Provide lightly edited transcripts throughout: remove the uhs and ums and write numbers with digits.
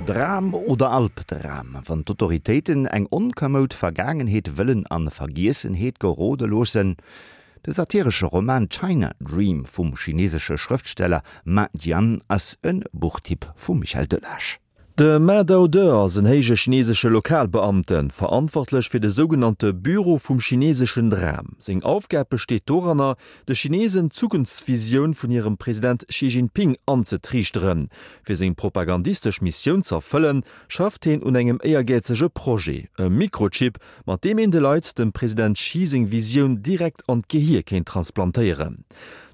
Dram oder Albdram, wann d'Autoritéiten eng onkamoud Vergaangenheet wëllen an Vergiessenheet gerode loossen? De satiresche Roman China Dream vum chinesesche Schrëftsteller Ma Jian ass e Buchtipp vum Michel Delage. De Ma Daode ass en héije chinesesche Lokalbeamten, verantwortlech fir de sougenannte Büro vum chineseschen Dram. Seng Aufgab besteet doranner, de Chinesen d'Zukunftsvisioun vun hirem President Xi Jinping anzetriichteren. Fir seng propagandistesch Missioun z'erfëllen, schafft heen un engem éiergäizege Projet, e Mikrochip, mat deem een de Leit dem President Xi seng Visioun direkt an d'Gehier kéint transplantéieren.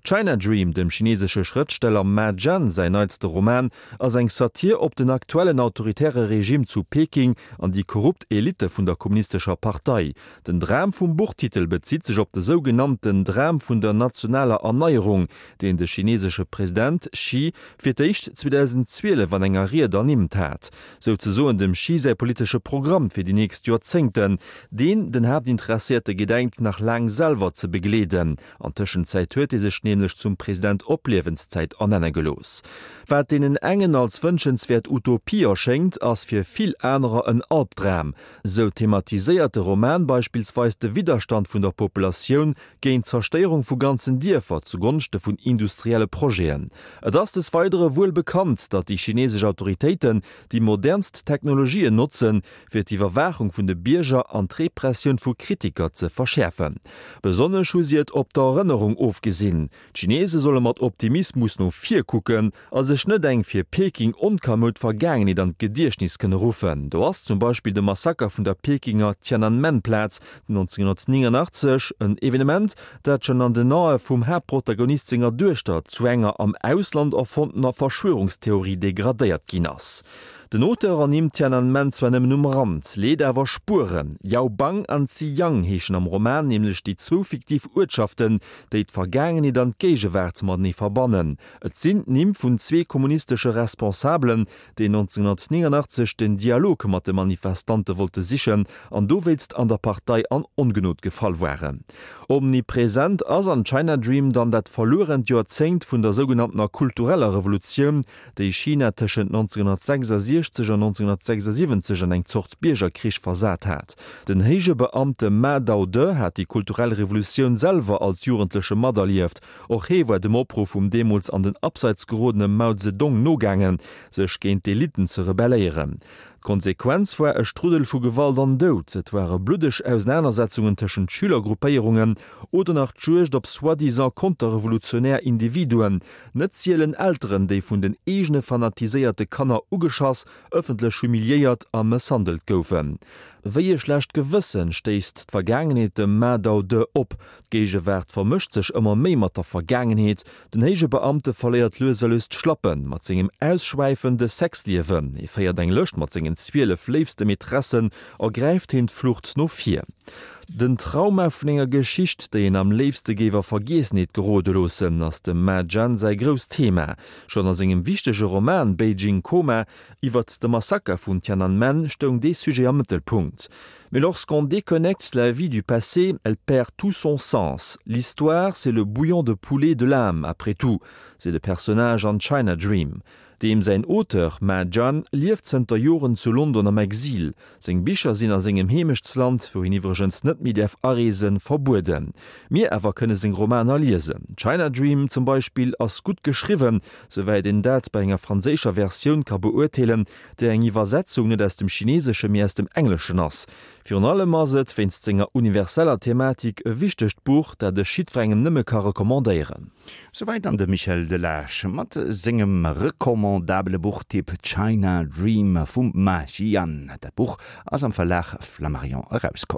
China Dream, dem chinesesche Schrëftsteller Ma Jian säin neitste Roman, ass eng Satir op den aktuellen autoritäre Regime zu Peking an déi korrupt Elitte vun der kommunistescher Partei. Den Dram vum Buchtitel bezitt sech op de sougenannten Dram vun der nationaler Erneierung, deen de chinesesche President Xi fir d'éischt 2012 an enger Ried ernimmt hat. Souzesoen dem Xi säi politesche Programm fir déi nächst Joerzéngten, deen den Haaptinteresséierte gedenkt nach laang selwer ze begleeden. An Tëschenzäit huet hie sech nämlech zum President op Liewenszäit ernenne gelooss. Wat deenen engen als wënschenswäert Utopie erschéngt, ass fir vill anerer en Albdram. Sou thematiséiert de Roman beispillsweis de Widderstand vun der Populatioun géint d'Zerstéierung vu ganzen Dierfer zu Gonschte vun industrielle Projeten. Et ass des Weidere wuel bekannt, datt déi chinesesch Autoritéiten déi modernst Technologien notzen, fir d'Iwwerwaachung vun de Bierger an d'Repressioun vu Kritiker ze verschäerfen. Besonnesch hu si et op d'Erënnerung ofgesinn. D'Chinese solle mat Optimismus no vir kucken a sech net eng fir Peking onkamoud Vergaangenheet an d'Gediechtnis kënne ruffen. Do ass zum Beispill de Massaker vun der Pekinger Tiananmen-Plaz 1989, en Evenement, dat schonn an den Ae vum Haaptprotagonist senger Duechter zu enger am Ausland erfonntener Verschwörungstheorie degradéiert ginn ass. Den Auteur ernimmt Tiananmen zwar nëmmen um Rand, leet awer Spueren. Yaobang an Ziyang heeschen am Roman nämlech déi zwou fiktiv Uertschaften, déi d'Vergaangenheet an d'Géigewaart matenee verbannen. Et sinn d'Nimm vun zwee kommunistesche Responsabelen, déi 1989 den Dialog mat de Manifestante wollte sichen an dowéinst an der Partei an Ongenod gefall waren. Omnipresent ass an China Dream dann dat verluerent Joerzéngt vun der sougenanntener kultureller Revolutioun, déi China tëschent 1966 an 1976 an eng Zort Biergerkrich versat hat. Den héije Beamte Ma Daode hat déi kulturell Revolutioun selwer als Jugendleche materlieft. Och hee war dem Opruff vum deemools an den Abseits gerodene Mao Zedong nogaangen, sech géint d'Elitten ze rebelléieren. D'Konsequenz war e Struddel vu Gewalt an Doud. Et ware bluddeg Ausenanersetzungen tëschent Schülergruppéierungen oder nach d'Juegd op soi-disant konterrevolutionär Individuen, Net sielen Elteren, déi vun den eegene fanatiséierte Kanner ugeschass, ëffentlech humiliéiert a mësshandelt goufen. Wéi e schlecht Gewëssen stéisst d'Vergaangenheet dem Ma Dao-De op. D'Géigewaart vermëscht sech ëmmer méi mat der Vergaangenheet. Den héije Beamte verléiert lues a lues d'Schlappen mat sengem ausschwäifende Sexliewen. Hie féiert eng Lëscht mat sengen 12 léifste Maîtressen a gräift heen d'Flucht no vir. Den Trauma vun enger Geschicht, déi een am léifste géif a Vergiessenheet gerode loossen, ass dem Ma Jian säi grousst Thema. Schonn a sengem wichtege Roman Beijing Coma iwwert de Massaker vun Tiananmen stoung dee Sujet am Mëttelpunkt. Mais lorsqu'on déconnecte la vie du passé, elle perd tout son sens. L'histoire, c'est le bouillon de poulet de l'âme, après tout, seet e Personnage an China Dream. Deem säin Auteur, Ma Jian, lieft zënter Joren zu London am Exil. Seng Bicher sinn a sengem Heemechtsland, wou hien iwwregens net méi däerf areesen, verbueden. Mir awer kënne seng Romaner liesen. China Dream zum Beispill ass gutt geschriwwen, souwäit een dat bei enger franséischer Versioun ka beurteelen, déi eng Iwwersetzung net aus dem Chineeseschen, mee aus dem Engleschen ass. Virun allem ass et, wéinst senger universeller Thematik, e wichtegt Buch, dat ech jiddwerengem nëmme ka recommandéieren. Souwäit dann de Michel Delage mat sengem recommandabele Buchtipp China Dream vum Ma Jian. Dat Buch ass am Verlag Flammarion erauskomm.